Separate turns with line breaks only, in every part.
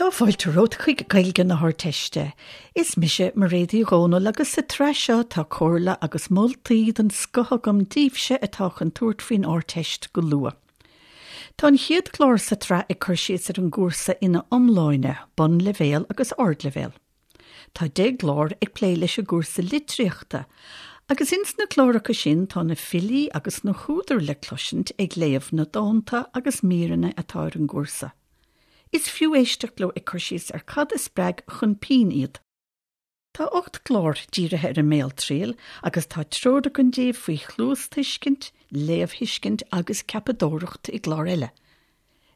Tá fáilte romhat chuig Gaeilge na hArdteiste. Is mise Mairéad Uí Dhomhnaill agus sa tsraith seo tá comhairle agus moltaí den scoth agam daoibhse atá chun tabhairt faoin Ardteist go luath. Tá an chéad chlár sa tsraith ag cur síos ar an gcúrsa ina iomláine, bunleibhéal agus ardleibhéal. Tá 10 gclár ag plé leis an gcúrsa litríochta, agus ins na cláracha sin tá na filí agus na húdair le cloisint ag léamh na dánta agus míreanna atá ar an gcúrsa. Is fiú éisteacht leo ag cur síos ar cad a spreag chun pinn iad. Tá 8 gclár dírithe ar an mbéaltriail agus tá treoir againn daoibh faoi chluastuiscint, léamhthuiscint agus ceapadóireacht i gclár eile.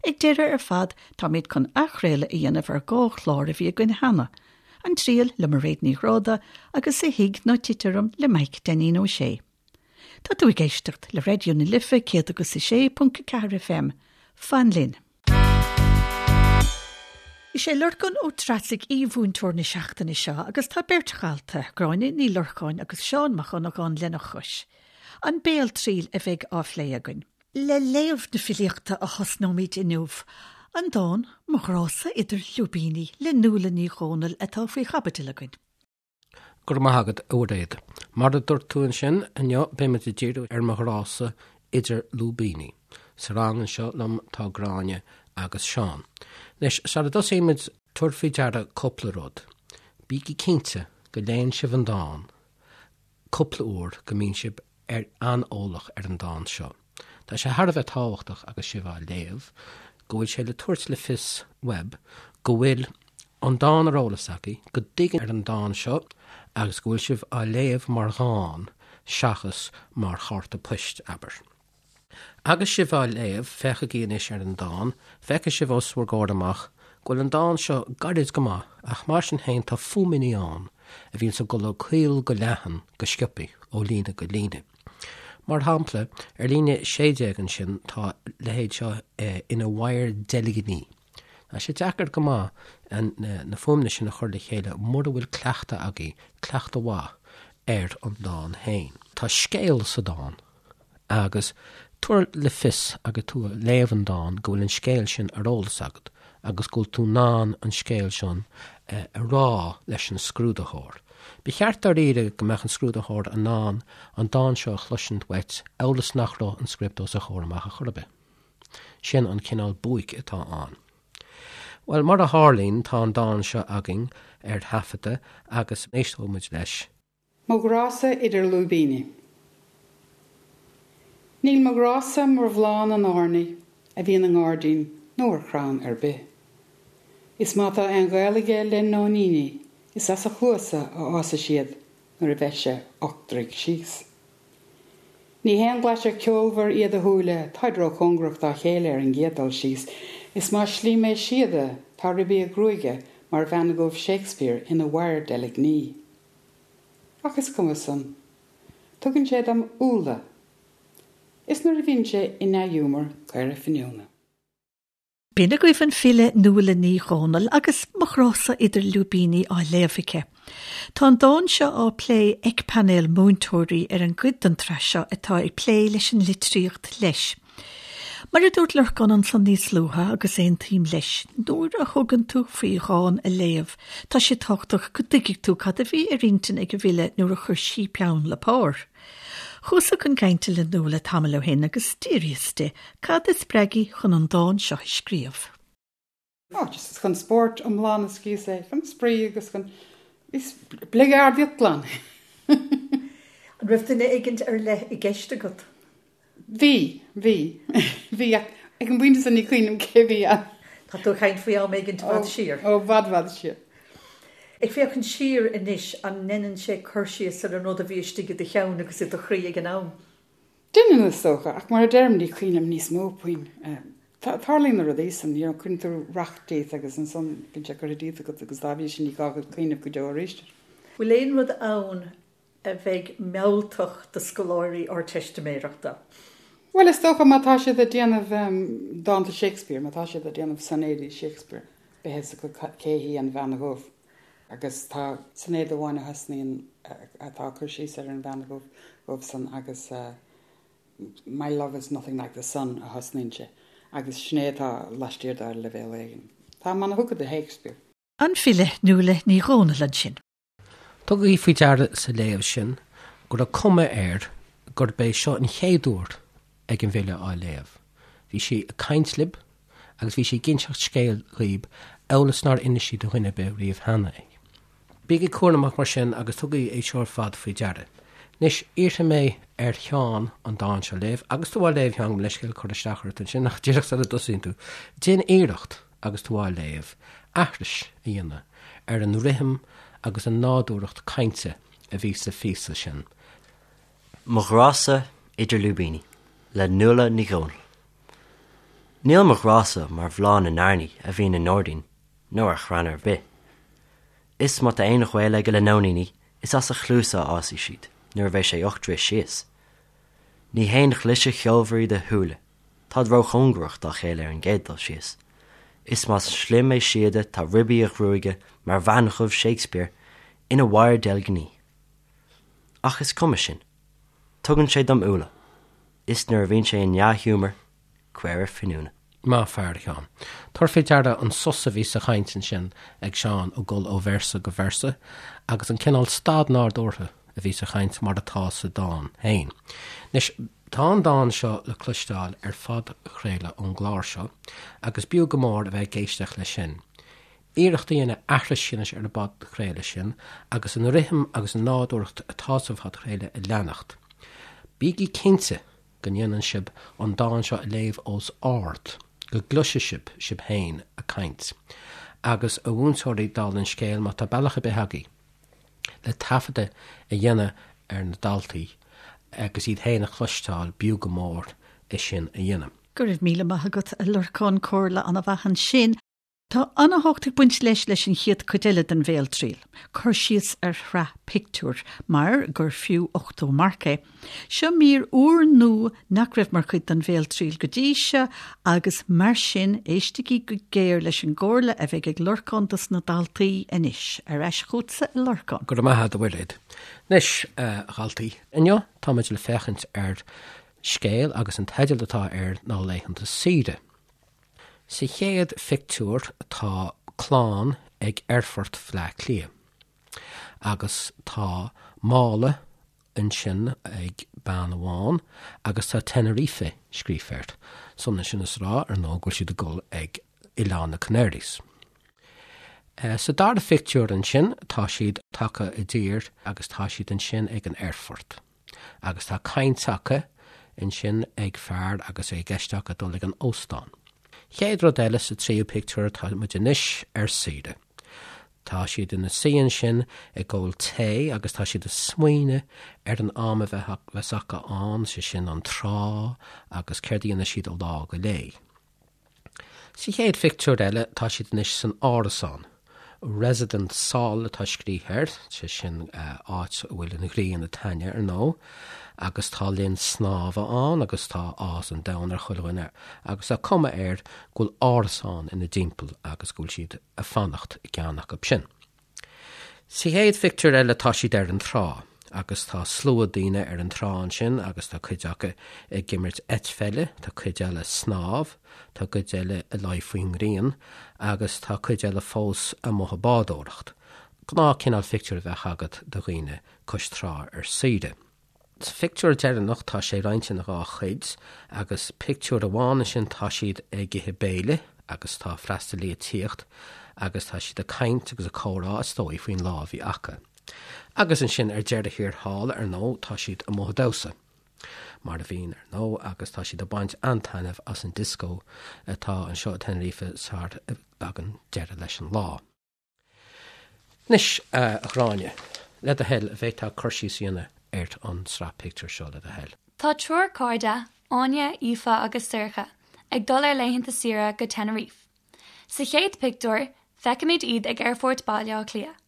Ag deireadh ar fad táimid chun athchraoladh a dhéanamh ar 2 chlár a bhí againn cheana, An Triail le Mairéad Ní Ghráda agus A Thig Ná Tit Orm le Maidhc Dainín Ó Sé. Tá tú ag éisteacht le Raidió na Life 106.4 FM. Fan linn! Is é Lorcán Ó Treasaigh aoi-mhúinteoir na seachtaine seo agus tá beirt dhalta, Gráinne Ní Lorcáin agus Seán Mac Dhonnagáin lena chois. An béaltriail a bheidh á phlé againn. Le léamh na filíochta a thosnóimid inniu, an dán 'Mo Ghrá-sa Idir Lúibíní' le Nuala Ní Dhomhnaill atá faoi chaibidil againn.
Go raibh maith agat, a Mhairéad. Mar a dúirt tú ansin, inniu beimid ag díriú ar Mo Ghrá-sa Idir Lúibíní. Sa rang anseo liom tá Gráinne agus Seán. Anois, sara dtosaímid, tabhair faoi deara cúpla rud. Bígí cinnte go léann sibh an dán cúpla uair go mbíonn sibh ar an-eolach ar an dán seo. Tá sé thar a bheith tábhachtach agus sibh á léamh go bhfuil sé le tabhairt le fios uaibh go bhfuil an dán ar eolas agaibh, go dtuigeann ar an dán seo agus go bhfuil sibh á léamh mar dhán seachas mar chárta poist, abair. Agus sibh á léamh, féachaigí anois ar an dán, feicfidh sibh os bhur gcomhair amach go bhfuil an dán seo gairid go maith ach mar sin féin tá fuaimeanna ann a bhíonns ag dul ó caol go leathan go sciobthaí, ó líne go líne. Mar shampla, ar líne 16 ansin tá a leithéid seo ina mhadhar deilgní. Tá sé deacair go maith na fuaimeanna sin a chur le chéile mura bhfuil cleachtadh agaibh, cleachtadh mhaith, ar an dán féin. Tá scéal sa dán. Agus tabhair le fios agus tú ag léamh an dáin go bhfuil an scéal sin ar eolas agat agus go bhfuil tú in ann an scéal sin a rá leis an scrúdaitheoir. Ba cheart dáiríre go mbeadh an scrúdaitheoir in ann an dán seo a chloisint uait amhail is nach raibh an script os a chomhair amach ar chor ar bith. Sin an cineál buaic atá ann. Bhuel, mar a tharlaíonn, tá an dán seo againn ar taifeadadh agus éisteoidh muid leis.
Mo ghrá-sa idir lúibíní. Níl mo ghrá-sa mar bhláth na n-airní a bhíonn i ngairdín nó ar chrann ar bith. Is má tá aon ghaol aige le nóiníní is as a chluasa a fhásfaidh siad nuair a bheidh sé 8 dtroigh síos. Ní haon ghlaisir ceolmhar iad a shúile, táid róchóngarach dá chéile ar an gcéad dul síos, is más slí mé síoda tá ribí a ghruaige mar bhean dhubh Shakespeare ina mhadhar deilgní. Ach is cuma san. Tugann sé dom úlla. Is nuair a bhíonn sé i ndea-ghiúmar, caora finiúna.
B'in agaibh an file Nuala Ní Dhomhnaill agus Mo Ghrá-sa Idir Lúibíní á léamh aici. Tá an dán seo á plé ag painéal múinteoirí ar an gcuid den tsraith seo atá ag plé leis an litríocht leis. Mar a dúirt Lorcán ansan níos luaithe, agus aontaím leis, nuair a thugann tú faoi dhán a léamh, tá sé tábhachtach go dtuigfidh tú cad a bhí ar intinn ag an bhfile nuair a chuir sí peann le pár. Chuasa chun cainte le Nuala tamall ó shin agus d'fhiafraíos di cad a spreag í chun an dán seo a scríobh.
Ó, just chun spóirt iomlán a scríos é, chun spraoi agus chun bligeardaíocht glan.
An raibh duine éigint ar leith i gceist agat?
Bhí, bhí, bhí ach ag an bpointe sin ní cuimhin liom cé bhí ann.
Tá tú ag caint faoi am éigint i bhfad siar.
Ó, i bhfad, bhfad siar.
Ag féachaint siar anois, an ndeineann sé cur síos ar an rud a bhí istigh i do cheann agus i do chroí ag an am?
Deineann, is dócha, ach mar a deirim, ní cuimhin liom níos mó puinn. Tarlaíonn na rudaí san, you know, cuireann tú racht díot agus ansan bíonn sé curtha díot agat agus dá bhrí sin ní gá duit cuimhneamh go deo arís air.
Bhfuil aon rud ann a bheidh mealltach do scoláirí Ardteistiméireachta?
Bhuel, is dócha má tá siad ag déanamh dánta Shakespeare, má tá siad ag déanamh soinéidí Shakespeare, beidh a fhios acu cé hí an Bhean Dhubh. Agus tá soinéad amháin a thosnaíonn, atá ag cur síos ar an Bhean Dhubh san agus My love is nothing like the sun a thosnaíonn sé agus sin é atá laistiar de ar leibhéal éigin. Táim ana-thugtha do Shakespeare.
An file Nuala Ní Dhomhnaill ansin.
Tugaigí faoi deara sa léamh sin go raibh cuma air gurb é seo an chéad uair ag an bhfile á léamh. Bhí sí ag caint libh agus bhí sí ag inseacht scéil dhaoib amhail is nár inis sí do dhuine ar bith riamh cheana é. Bígí cúramach mar sin agus tugaigí é seo ar fad faoi deara. Anois, iarrfaidh mé ar Sheán an dán seo a léamh, agus tú á léamh, a Sheáin, gabh mo leithscéal cur isteach ort ansin, ach díreach sula dtosaíonn tú, déan iarracht agus tú á léamh, aithris a dhéanamh ar an rithim agus an nádúrthacht cainte a bhí sa phíosa sin.
Mo Ghrása Idir Lúibíní le Nuala Ní Dhomhnaill. Níl mo ghrása mar bhláth na n-airní a bhíonn i ngairdín nó ar chrann ar bith. Is má tá aon ghaol aige le nóiníní is as a chluasa a fhásfaidh siad nuair a bheidh sé 8 dtroith síos. Ní haon chliseadh cheolmhar iad a shúile, táid róchóngarach dá chéile ar an gcéad dul síos. Is más slim é síoda tá ribí a ghruaige mar bhean dhubh Shakespeare ina wire deilgní. Ach is cuma sin. Tugann sé dom úlla. Is nuair a bhíonn sé i ndea-ghiúmar, caora finiúna.
Maith fear, a Sheáin. Tabhair faoi deara an sos a bhí sa chaint ansin ag Seán ag dul ó véarsa go véarsa agus an cineál stad nádúrtha a bhí sa chaint mar atá sa dán féin. Anois, tá an dán seo le cloisteáil ar phodchraoladh ón gclár seo agus b'fhiú go mór a bheith ag éisteacht leis sin. Iarracht a dhéanamh aithris a dhéanamh ar an bpodchraoladh sin agus an rithim agus an nádúrthacht atá sa phodchraoladh a leanacht. Bígí cinnte go ndéanann sibh an dán seo a léamh os ard, go gcloisfidh sibh sibh féin ag caint. Agus a mhúinteoirí, dála an scéil, má tá bealach ar bith agaibh le taifeadadh a dhéanamh ar na daltaí agus iad féin a chloisteáil, b'fhiú go mór é sin a dhéanamh.
Go raibh míle maith agat, a Lorcáin, comhairle an-mhaith ansin. Tá an-tábhacht ag baint leis leis an chéad chuid eile den bhéaltriail, cur síos ar shraith pictiúr, mar gur fiú 80 marc é. Seo mír úrnua nach raibh mar chuid den bhéaltriail go dtí seo agus mar sin éistigí go géar leis an gcomhairle a bheidh ag Lorcán dos na daltaí anois. Ar ais chugatsa a Lorcáin.
Go raibh maith agat a Mhuiréad. Anois, a dhaltaí, inniu táimid le féachaint ar scéal agus an teideal atá air ná Laethanta Saoire. Sa chéad phictiúr tá clann ag aerfort Bhaile Átha Cliath agus tá mála ansin ag bean amháin agus tá Tenerife scríofa air. Is ionann sin is a rá, ar ndóigh, go bhfuil siad ag dul ag Oileán na Canaries. Sa dara phictiúr ansin tá siad tagtha i dtír agus tá siad ansin ag an aerfort. Agus tá caint acu ansin ag fear agus é i gceist acu dul ag an óstán. Chéad rud eile sa tríú pictiúr tá muid anois ar saoire. Tá siad ina suí ansin ag ól tae agus tá siad ag smaoineamh ar an am a bheas acu ann, sé sin an trá agus céard a dhéanfaidh siad ó lá go lá. Sa chéad phictiúr eile tá siad anois san árasán. Residence Sol atá scríofa air, sé sin áit a bhfuil an ghrian ag taitneamh ar ndóigh, agus tá linn snámha ann agus tá áthas an domhain ar chuile dhuine agus tá cuma air go bhfuil árasán ina dtimpeall agus go bhfuil siad ag fanacht i gceann acu sin. Sa chéad phictiúr eile tá siad ar an trá agus tá slua daoine ar an trá ansin agus tá cuid acu ag imirt eitpheile, tá cuid eile ag snámh, tá cuid eile ag luí faoin ngrian agus tá cuid eile fós amuigh ag bádóireacht. Gnáth cineál phictiúr a bheadh agat de dhaoine cois trá ar saoire. Sa phictiúr deireanach tá sé roinnte ina dhá chuid agus pictiúr amháin ansin tá siad ag ithe béile agus tá freastalaí ag tíocht agus tá siad ag caint agus ag comhrá is dóigh faoin lá a bhí acu. Agus ansin ar deireadh thiar thall ar ndóigh tá siad amuigh ag damhsa. Mar a bhíonn ar ndóigh agus tá siad ag baint an-taitneamh as an dioscó atá anseo i Tenerife sar a dtagann deireadh leis an lá. Anois, a Ghráinne, le do thoil, an bhféadfá cur síos a dhéanamh ar an tsraith pictiúr seo, le do thoil.
Tá triúr cairde, Áine, Aoife agus Sorcha, ag dul ar laethanta saoire go Tenerife. Sa chéad pictiúr, feicimid iad ag Aerfort Baile Átha Cliath.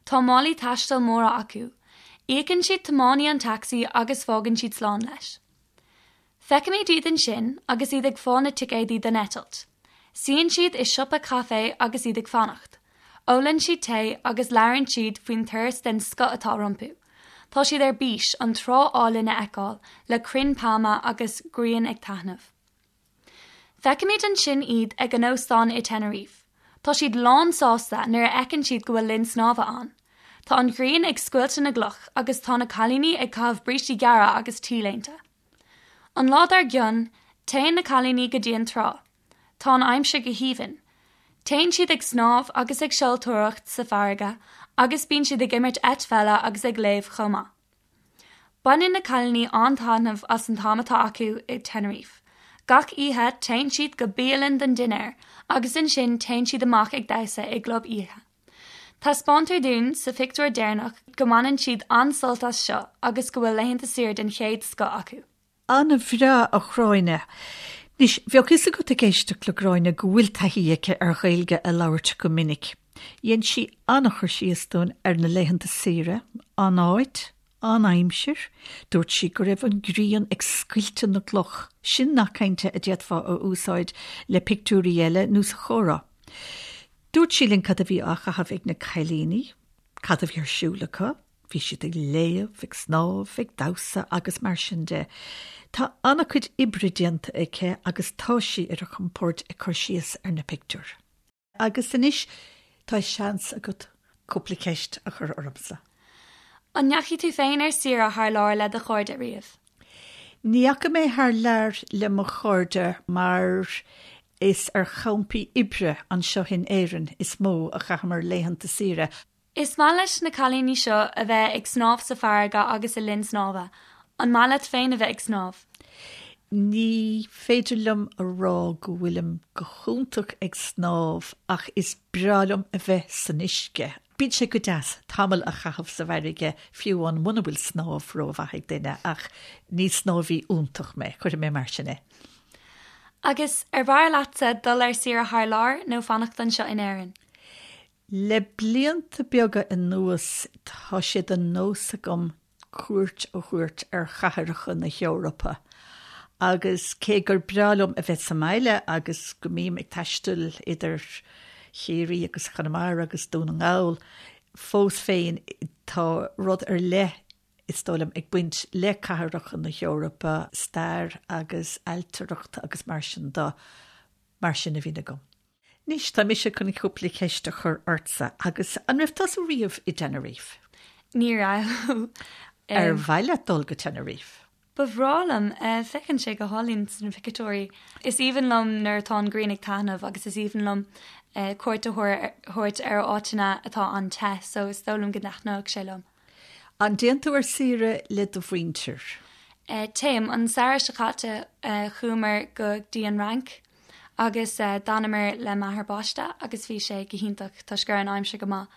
Tá málaí taistil móra acu. Íocann siad tiománaí an tacsaí agus fágann siad slán leis. Feicimid iad ansin agus iad ag fáil na ticéadaí don eitilt. Suíonn siad i siopa caife agus iad ag fanacht. Ólann siad tae agus labhrann siad faoin turas den scoth atá rompu. Tá siad ar bís an trá álainn a fheiceáil le crainn pailme agus grian ag taitneamh. Feicimid ansin iad ag an óstán i Tenerife. Tá siad lán sásta nuair a fheiceann siad go bhfuil linn snámha ann. Tá an ghrian ag scoilteadh na gcloch agus tá na cailíní ag caitheamh brístí gearra agus T-léinte. An lá dár gcionn, téann na cailíní go dtí an trá. Tá an aimsir go haoibhinn. Téann siad ag snámh agus ag seoltóireacht sa bhfarraige agus bíonn siad ag imirt eitpheile agus ag léamh chomh maith. Baineann na cailíní an-taitneamh as an t-am atá acu i Tenerife. Gach oíche téann siad go bialann don dinnéar agus ansin téann siad amach ag damhsa i gclub oíche. Taispeántar dúinn sa phictiúr deireanach go mbaineann siad an-sult as seo agus go bhfuil laethanta saoire den chéad scoth acu.
An-bhreá, a Ghráinne. Anois, bheadh fhios agat ag éisteacht le Gráinne go bhfuil taithí aici ar Ghaeilge a labhairt go minic. Dhein sí an-chur síos dúinn ar na laethanta saoire, an áit, an aimsir. Dúirt sí go raibh an ghrian ag scoilteadh na gcloch. Sin nath cainte a d'fhéadfá a úsáid le pictiúirí eile nó sa chomhrá. Dúirt sí linn cad a bhí á chaitheamh ag na cailíní, cad a bhí ar siúl acu, Bhí siad ag léamh, ag snámh, ag damhsa agus mar sin de. Tá an-chuid oibre déanta aici agus tá sí ar a compord ag cur síos ar na pictiúir. Agus anois tá seans agat cúpla ceist a chur ormsa.
An ndeachaigh tú féin ar saoire thar lear le do chairde riamh?
Ní dheachaigh mé thar lear le mo chairde mar is ar champaí oibre anseo in Éirinn is mó a chaitheamar laethanta saoire.
Is maith leis na cailíní seo a bheith ag snámh sa bhfarraige agus i linn snámha. An maith leat féin a bheith ag snámh?
Ní féidir liom a rá go bhfuilim go hiontach ag snámh ach is breá liom a bheith san uisce. Bíonn sé go deas tamall a chaitheamh sa bhfarraige fiú amháin muna bhfuil snámh rómhaith ag duine ach ní snámhaí iontach mé, cuirfidh mé mar sin é.
Agus ar bhfearr leatsa dul ar saoire thar lear nó fanacht anseo in Éirinn?
Le blianta beaga anuas tá sé de nós agam cuairt a thabhairt ar chathracha na hEorpa agus cé gur breá liom a bheith sa mbaile agus go mbím ag taisteal idir Chiarraí agus Conamara agus Dún na nGall, fós féin tá rud ar leith is dóigh liom, ag baint le cathracha na hEorpa, stair agus ailtireacht agus mar sin de, mar sin a bhíonn agam. Anois, tá mise chun cúpla ceist a chur ortsa agus an raibh tusa riamh i dTenerife?
Ní raibh.
Ar mhaith leat dul go Tenerife?
Ba bhreá liom. Féachann sé go hálainn sna pictiúirí. Is aoibhinn liom nuair atá an ghrian ag taitneamh agus is aoibhinn liom cuairt a thabhairt ar áiteanna atá an-te so is dóigh liom go dtaitneodh sé liom.
An dtéann tú ar saoire le do mhuintir?
Téim. An samhradh seo caite chuamar go dtí an Fhrainc. Agus d'fhanamar le m'athair baiste agus bhí sé go hiontach toisc go raibh an aimsir go maith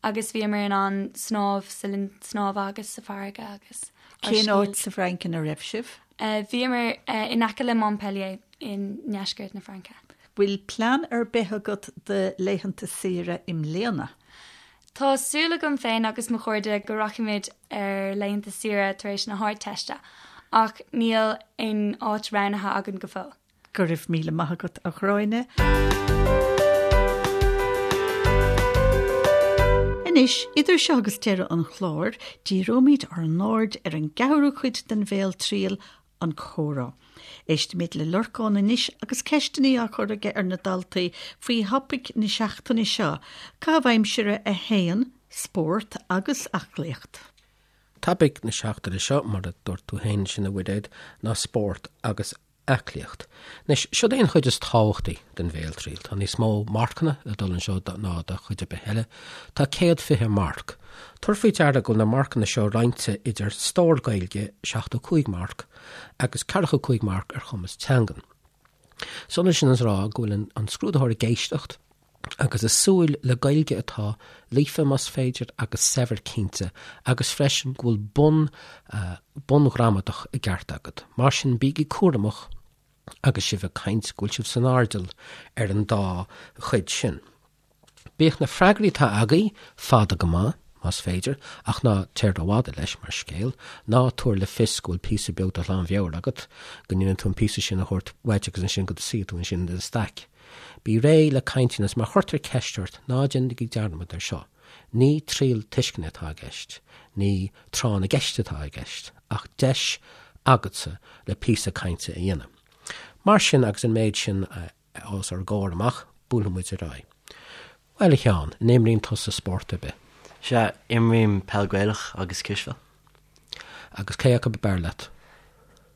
agus bhíomar in ann snámh sa linn snámha agus sa bhfarraige agus
ár Cén áit sa bhFrainc ina raibh sibh?
Bhíomar in aice le Montpellier i ndeisceart na Fraince.
Bhfuil plean ar bith agat do laethanta saoire i mbliana?
Tá súil agam féin agus mo chairde go rachaimid ar laethanta saoire tar éis na hArdteiste ach níl aon áit roghnaithe againn go fóill.
Go raibh míle maith agat, a Ghráinne. Anois, idir seo agus deireadh an chláir, díreoimid ár n-aird ar an gceathrú cuid den bhéaltriail, an comhrá. Éistfimid le Lorcán anois agus ceisteanna á cur aige ar na daltaí faoi thopaic na seachtaine seo, caitheamh aimsire 1, spórt agus aclaíocht.
Topaic na seachtaine seo, mar a dúirt tú féin ansin, a Mhuiréad, ná spórt agus aclaíocht. Anois, siod é an chuid is tábhachtaí den bhéaltriail. Tá níos mó marcanna ag dul anseo ná do chuid ar bith eile. Tá 120 marc. Tabhair faoi deara go bhfuil na marcanna seo roinnte idir stór Gaeilge, 75 marc, agus 45 marc ar chumas teangan. Is ionann sin is a rá go bhfuil an scrúdaitheoir ag éisteacht, agus ag súil le Gaeilge atá líofa más féidir agus saibhir cinnte agus freisin go bhfuil bun bunghramadach i gceart agat. Mar sin bígí cúramach agus sibh ag caint go bhfuil sibh san airdeall ar an dá chuid sin. Bíodh na freagraí atá agaibh fada go maith, más féidir, ach ná téir rófhada leis mar scéal, ná tabhair le fios go bhfuil píosa beag de ghlanmheabhair agat, go ndéanann tú an píosa sin a thabhairt uait agus ansin go suí tú ansin i do staic. Bí réidh le caint agus má chuirtear ceist ort, ná déanaigí dearmad ar seo, ní triail tuisceana atá i gceist, ní tráth na gceist atá i gceist, ach deis agatsa le píosa cainte a dhéanamh. Mar sin, agus an méid sin os ár gcomhair amach, buailfidh muid ar aghaidh. Bhuel, a Sheáin, an imríonn tusa spórt ar bith?
Sea, imrím peil Gaelach agus cispheil.
Agus cé acu ab fhearr leat?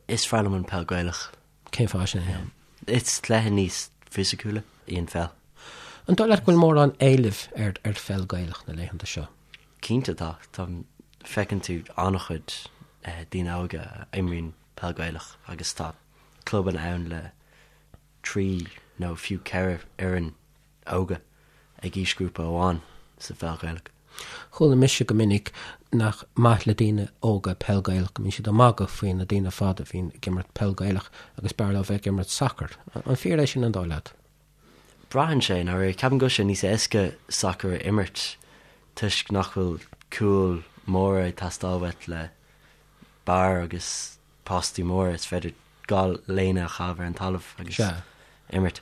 Is fearr liom an peil Gaelach.
Cén fáth sin, a Sheáin?
Is cluiche níos fisiciúla í an pheil.
An dóigh leat go bhfuil mórán éilimh ar ar pheil Gaelach na laethanta seo?
Cinnte tá. Tá, feiceann tú an-chuid daoine óga a imríonn peil Gaelach agus tá clubanna ann le 3 nó fiú 4 fhoireann óga ag aoisghrúpa amháin sa pheil Ghaelach.
Chuala mise go minic nach maith le daoine óga peil Gaelach, go mbíonn siad ag magadh faoi na daoine fada a bhíonn ag imirt peil Gaelach agus b'fhearr leo bheith ag imirt sacair. An fíor é sin an dóigh leat?
Braitheann sé, i ndáiríre. Ceapaim go bhfuil sé níos éasca sacar a imirt toisc nach bhfuil cúil móra ag teastáil uait le barr agus postaí móra, is féidir 2 léine a chaitheamh ar an talamh agus imirt.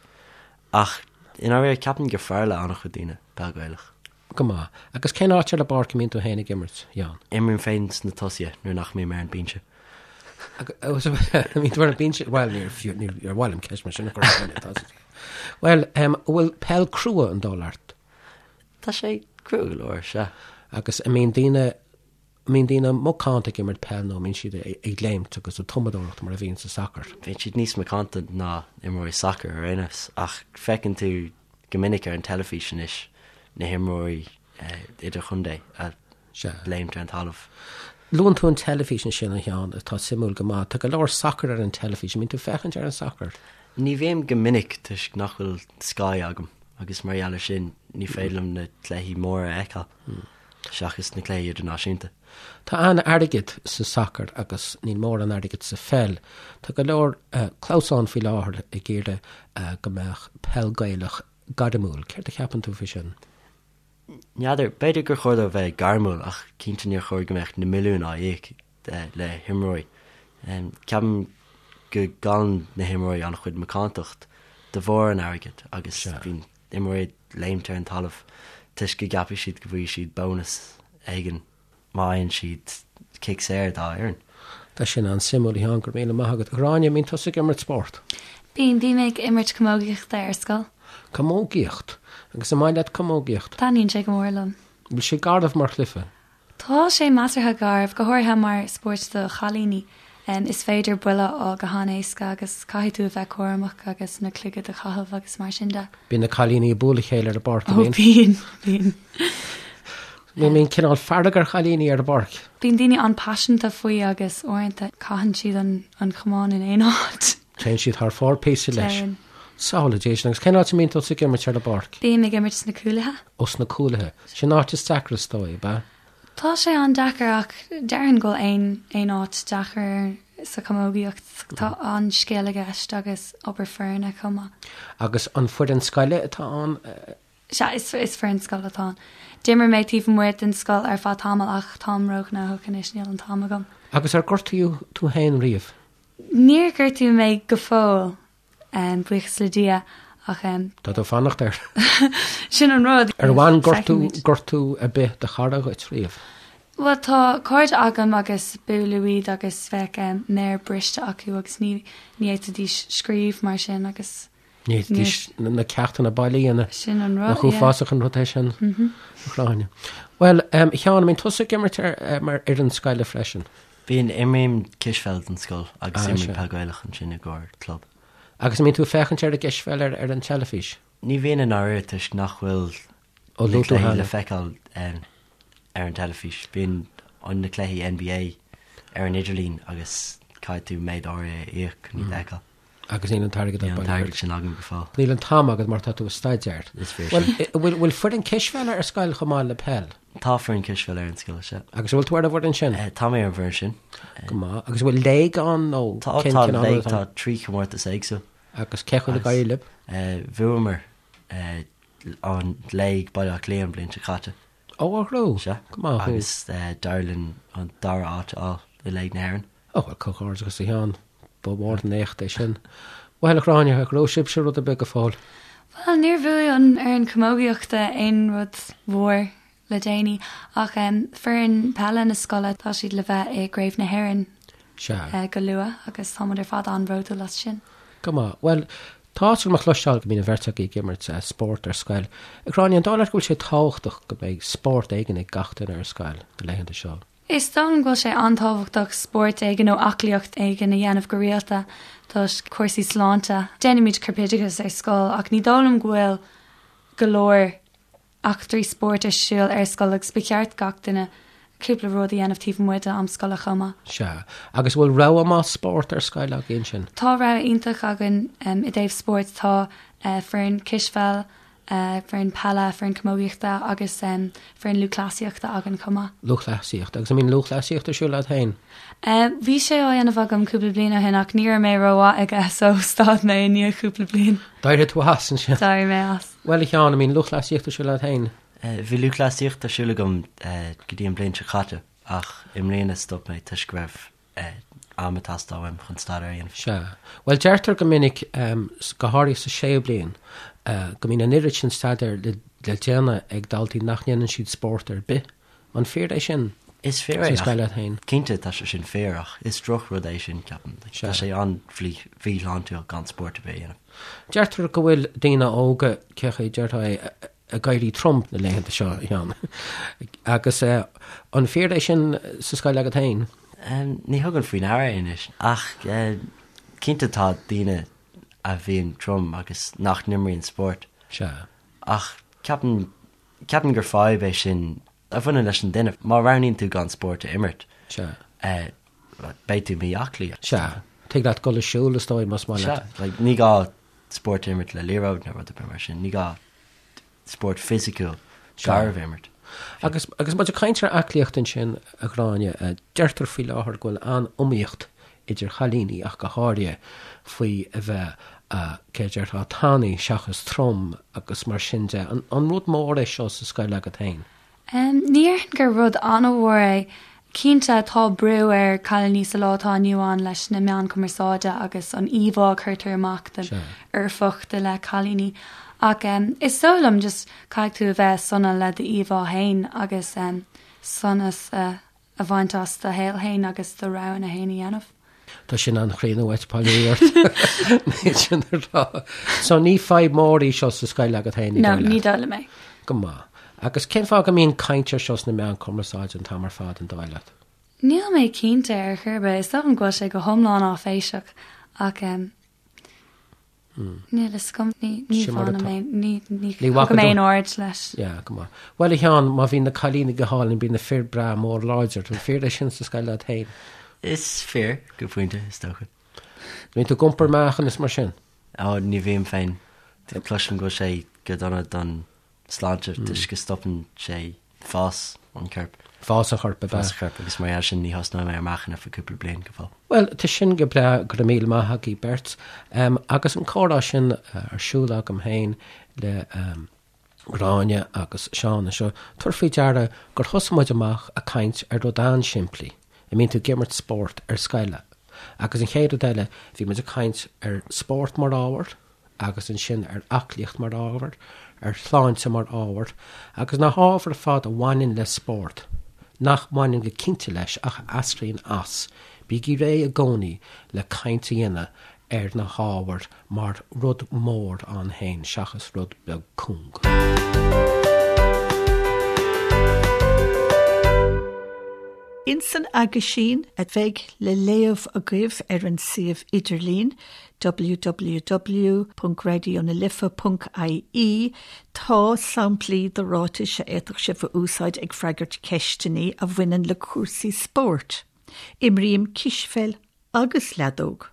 Ach i ndáiríre, ceapaim gur fearr le an-chuid daoine peil Ghaelach.
Go maith. Agus cén áit ar an bpáirc a mbíonn tú féin ag imirt, a Sheáin?
Imrím féin sna tosaithe nuair nach mbím ar an binse.
Bíonn tú ar an binse? Bhuel, níor fiú, níor mhaith liom ceist mar sin a chur ar dhuine, tá a Bhuel, an bhfuil peil crua an dóigh leat?
Tá sé crua go leor, sea.
Agus an mbíonn daoine An mbíonn daoine macánta ag imirt peil nó an mbíonn siad ag léimt agus ag tumadóireacht mar a bhíonn sa sacar?
Bíonn siad níos macánta ná imreoirí sacair ar aon nós ach feiceann tú go minic ar an teilifís anois na himreoirí idirchontae ag léimt ar an talamh.
Luann tú an teilifís ansin, a Sheáin, atá suimiúil go maith. Tá go leor sacair ar an teilifís. An mbíonn tú ag féachaint ar an sacar?
Ní bhím go minic toisc nach bhfuil Sky agam agus mar gheall air sin ní féidir liom na cluichí móra a fheiceáil. seachas na cluichí idirnáisiúnta.
Tá an-airgead sa sacar agus níl mórán airgid sa pheil. Tá go leor clamhsán faoi láthair ag iarraidh go mbeadh peil Gaelach gairmiúil. Céard a cheapann tú faoi sin?
N'fheadar, b'fhéidir gur chóir dó bheith gairmiúil ach cinnte níor chóir go mbeadh na milliúin á íoc le himreoirí. Ceapaim go gcailleann na himreoirí an-chuid macántacht de bharr an airgid agus bíonn imreoirí ag léimt ar an talamh toisc go gceapfaidh siad go bhfaighidh siad bónas éigin má fhaigheann siad cic saor dá fhoireann.
Tá sin an-suimiúil, a Sheáin, go raibh míle maith agat. A Ghráinne, an mbíonn tusa ag imirt spórt?
Bíonn, bím ag imirt camógaíochta ar scoil.
Camógaíocht? Agus an maith leat camógaíocht?
Taitníonn sé go mór liom.
Bhfuil sé garbh mar chluiche?
Tá sé measartha garbh, go háirithe mar spórt do chailíní. Is féidir buille a fháil go han-éasca agus caithfidh tú a bheith cúramach agus na cloigid a chaitheamh agus mar sin de.
Bíonn na cailíní ag bualadh a chéile ar an bpáirc, an
mbíonn? Ó bíonn, bíonn.
Bíonn cineál fearg ar chailíní ar an bpáirc.
Bíonn daoine an-paiseanta faoi agus uaireanta caitheann siad an camán in aon áit.
Téann siad thar fóir píosa leis. Téann. Samhlaigh Dia sin. Agus cén áit a mbíonn tusa ag imirt ar an bpáirc?
Bím ag imirt sna cúlaithe.
Ó sna cúlaithe. Sin áit is deacra is dóigh, ab ea?
Tá sé an-deacair ach déarfainn go bhfuil aon aon áit deacair sa chamógaíocht. Tá an-scil i gceist agus obair foirne chomh maith.
Agus an foireann scoile atá ann?
Sea, is is foireann scoile atá ann. D'imir mé taobh amuigh den scoil ar feadh tamaill ach táim róghnóthach anois, níl an t-am agam.
Agus ar gortaíodh tú féin riamh?
Níor gortaíodh mé go fóill. Buíochas le Dia ach.
Tá tú ag fanacht air.
Sin an rud.
Ar bhain gortú, gortú ar bith do chara dhuit riamh?
Bhuel tá cairde agam agus buaileadh iad agus bheadh méar briste acu agus ní ní fhéadfaidís scríobh mar sin agus.
Ní fhéadfaidís na ceachtanna baile a dhéanamh.
Sin an rud,
Nach uafásach an rud é sin, a Ghráinne. Bhuel, a Sheáin, an mbíonn tusa ag imirt ar mar fhoireann scoile freisin?
Bíonn, imrím cispheil don scoil agus imrím peil Gaelach ansin i gcomhair club.
Agus an mbíonn tú ag féachaint ar an gcispheil ar ar an teilifís?
Ní bhíonn i ndáiríre toisc nach bhfuil na cluichí le feiceáil ar an teilifís. Bíonn na cluichí NBA ar an idirlíon agus caithfidh tú méid áirithe a íoc chun iad a fheiceáil.
Agus níl an
t-airgead Níl an t-airgead sin agam go
fóill. Níl an t-am agat mar tá tú ag staidéar.
Is fíor sin.
Bhuel, bhfuil foireann cispheile ar scoil chomh maith le peil?
Tá foireann cispheile ar an scoil, sea.
Agus an bhfuil tú ar an bhfoireann sin?
Tá mé ar an bhfoireann sin.
Go maith. Agus an bhfuil léig ann nó
Tá, cén tá cineál léig, tá 3 chomórtas éagsúil.
Agus cén chaoi ar éirigh libh?
Bhuamar an léig Baile Átha Cliath an bhliain seo caite.
Ó, a ghrú.
Sea.
Go maith
thú. Agus d'éirigh linn an dara háit a fháil i Léig na hÉireann.
Ó, bhuel, comhghairdeachas a Sheáin. Ba mhór an éacht é sin. Bhuel, a Ghráinne, ar ghnóthaigh sibhse rud ar bith go fóill?
Bhuel, níor bhuaigh an fhoireann camógaíochta aon rud mhór le déanaí, ach foireann peile na scoile, tá siad le bheith i gCraobh na hÉireann
Sea.
go luath agus tá muid ar fad an-bhródúil as sin.
Go maith. Bhuel, Tá a chloisteáil go mbíonn an bheirt agaibh ag imirt spórt ar scoil. A Ghráinne, an dóigh leat go bhfuil sé tábhachtach go mbeidh spórt éigin ag gach duine ar scoil na laethanta seo?
Is dóigh liom go bhfuil sé an-tábhachtach spórt éigin nó aclaíocht éigin a dhéanamh go rialta toisc cúrsaí sláinte. Déanaimid corpoideachas ar scoil ach ní dóigh liom go bhfuil go leor eachtraí spóirt ar siúl ar scoil agus ba cheart gach duine cúpla rud a dhéanamh taobh amuigh de am scoile chomh maith.
Sea. Agus bhfuil rogha maith spórt ar scoil agaibh ansin?
Tá rogha iontach againn i dtaobh spóirt. Tá foireann cispheil, foireann peile, foireann camógaíochta agus foireann lúthchleasaíochta againn chomh maith.
Lúthchleasaíocht. Agus an mbíonn lúthchleasaíocht ar siúl agat féin?
Bhí sé á dhéanamh agam cúpla bliain ó shin ach ní raibh mé rómhaith aige so stad mé i ndiaidh cúpla bliain.
D'éirigh tú as ansin?
D'éirigh mé as.
Bhuel a Sheáin, an mbíonn lúthchleasaíocht ar siúl agat féin?
Bhí lúthchleasaíocht ar siúl agam go dtí an bhliain seo caite ach i mbliana stop mé toisc go raibh am ag teastáil uaim chun staidéar a dhéanamh.
Sea. Bhuel deirtear go minic, go háirithe sa séú bliain, go mbíonn an oiread sin staidéir le déanamh ag daltaí nach ndéanann siad spórt ar bith. An fíor é sin?
Is fíor é. Sa scoil agat féin? Cinnte, tá sé sin fíor, ach is drochrud é sin, ceapaim. Tá sé an-mhíshláintiúil gan spórt ar bith a dhéanamh.
Deirtear go bhfuil daoine óga, cé chaoi a déarfá é, ag éirí trom na laethanta seo, a Sheáin. Agus an fíor é sin sa scoil agat féin?
Ní thugaim faoi ndeara é anois, ach cinnte tá daoine a bhíonn trom agus nach n-imríonn spórt.
Sea.
Ach ceapaim Ceapaim gur fadhb é sin a bhaineann leis an duine. Má roghnaíonn tú gan spórt a imirt, beidh tú mí-aclaí.
Sea. Tig leat dul ag siúl, is dóigh, más maith
leat. Sea. Like, ní gá spórt a imirt le liathróid nó rud ar bith mar sin. Ní gá spórt fisiciúil garbh a imirt.
Agus, agus muid ag caint ar aclaíocht ansin, a Ghráinne, deirtear faoi láthair go bhfuil an-iomaíocht idir chailíní ach go háirithe, faoi a bheith, cé a déarfá, tanaí seachas trom agus mar sin de. An rud mór é seo sa scoil agat féin?
Ní déarfainn gur rud an-mhór é. Cinnte, tá brú ar cailíní sa lá atá inniu ann leis na meáin cumarsáide agus an íomhá a cuirtear amach den fhoirfeacht i leith cailíní. Ach is dóigh liom just caithfidh tú a bheith sona le d'íomhá féin agus sonas a a bhaint as do shaol féin agus do roghanna féin a dhéanamh.
Tá sin an-chríonna uait, bail ó Dhia ort. Níl sin a rá. So ní fadhb mór í seo sa scoil agat féin,
ní dóigh leat? No, ní dóigh liom é.
Go maith. Agus cén fáth go mbíonn caint ar seo sna meáin cumarsáide an t-am ar fad, an dóigh leat?
Níl mé cinnte ar chor ar bith. Is dóigh liom go bhfuil sé go hiomlán áiféiseach ach Níl a fhios agam, ní bhainim aon, ní thugaim aon aird leis.
Yeah, go maith. Bhuel, a Sheáin, má bhíonn na cailíní go hálainn, bíonn na fir breá mór láidir. An fíor é sin sa scoil leat féin?
Is fíor, go pointe, is dócha.
Bíonn tú ag iompar meáchan is mar sin?
Ó, ní bhím féin. Cloisim go bhfuil sé go dona don sláinte toisc go stopann sé fás an choirp.
Fás an choirp, ab
ea? Fás an choirp agus mar gheall sin ní thosnóidh mé ar meáchan ar feadh cúpla bliain go
fóill. Bhuel, tá sin go breá, go raibh míle maith agaibh beirt. Agus an comhrá sin ar siúl agam féin le Gráinne agus Seán anseo, tabhair faoi deara gur thosaigh muid amach ag caint ar rud an-simplí, an mbíonn tú ag imirt spórt ar scoil? Agus an chéad rud eile, bhí muid ag caint ar spórt mar ábhar, agus ansin ar aclaíocht mar ábhar, ar shláinte mar ábhar, agus na hábhair ar fad a bhaineann le spórt, nach mbaineann go cinnte leis ach a eascraíonn as, bígí réidh i gcónaí le caint a dhéanamh ar na hábhair mar rud mór ann féin seachas rud beag cúng.
Ins an aguisín a bheidh le léamh agaibh ar an suíomh idirlín, www.raidionalife.ie, tá samplaí de ráitis a fhéadfadh sibh a úsáid ag freagairt ceisteanna a bhaineann le cúrsaí spóirt. Imrím cispheil agus leadóg.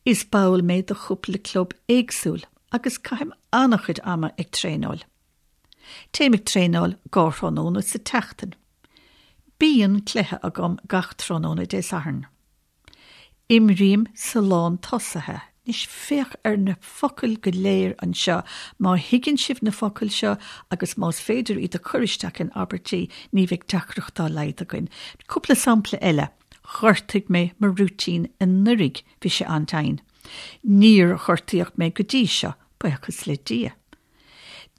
Is ball mé de chúpla club éagsúil agus caithim an-chuid ama ag traenáil. Téim ag traenáil dhá thráthnóna sa tseachtain. Bíonn cluiche agam gach tráthnóna Dé Sathairn. Imrím sa lán tosaithe. Anois féach ar na focail go léir anseo. Má thuigeann sibh na focail seo agus más féidir iad a chur isteach in abairtí, ní bheidh deacracht dá laghad againn. Cúpla sampla eile. Ghortaigh mé mo rúitín anuraidh, bhí sé an-tinn. Níor gortaíodh mé go dtí seo, buíochas le Dia.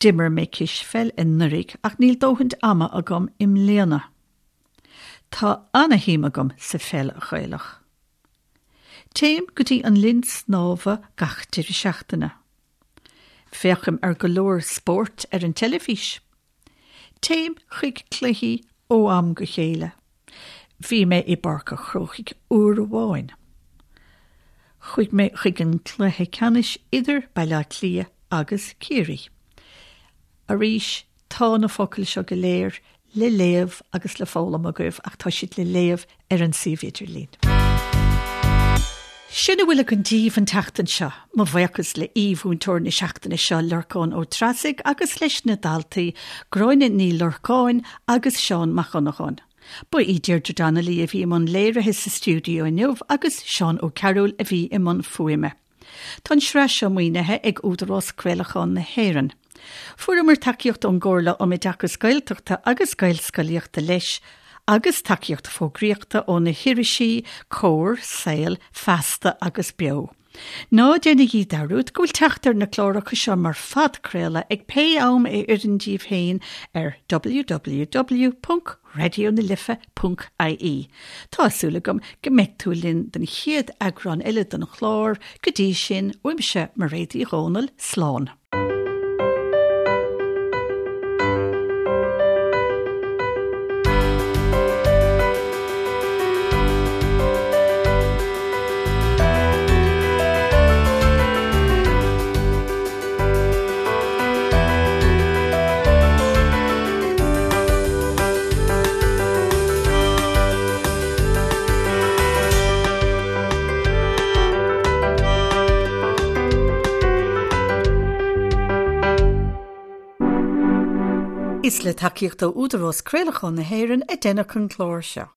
D'imir mé cispheil anuraidh ach níl dóthain ama agam i mbliana. Tá ana-shuim agam sa pheil Ghaelach. Téim go dtí an linn snámha gach deireadh seachtaine. Féachaim ar go leor spóirt ar an teilifís. Téim chuig cluichí ó am go chéile. Bhí mé i bPáirc an Chrócaigh uair amháin. Chuaigh mé chuig an cluiche ceannais idir Baile Átha Cliath agus Ciarraí. Arís, tá na focail seo go léir le léamh agus le foghlaim agaibh ach tá siad le léamh ar an suíomh idirlín. Sin a bhfuil againn daoibh an tseachtain seo. Mo bhuíochas le aoi-mhúinteoir na seachtaine seo, Lorcán Ó Treasaigh, agus leis na daltaí, Gráinne Ní Lorcáin agus Seán Mac Dhonnagáin. Ba í Deirdre Donnelly a bhí i mbun léirithe sa stiúideo inniu agus Seán Ó Cearúil a bhí i mbun fuaime. Tá an tsraith seo maoinithe ag Údarás Craolacháin na hÉireann. Fuaireamar tacaíocht ón gComhairle um Oideachas Gaeltachta agus Gaelscolaíochta leis, agus tacaíocht fógraíochta ó na hirisí Comhar, Saol, Feasta agus Beo. Ná déanaigí dearúd go bhfuil teacht ar na cláracha seo mar phodchraoladh ag pé am a oireann díbh féin ar www. raidionalife.ie. Tá súil agam go mbeidh tú linn don chéad eagrán eile den chlár, go dtí sin, uaimse, Mairéad Uí Dhomhnaill, slán. Is le tacaíocht ó Údarás Craolacháin na hÉireann a deineadh an clár seo.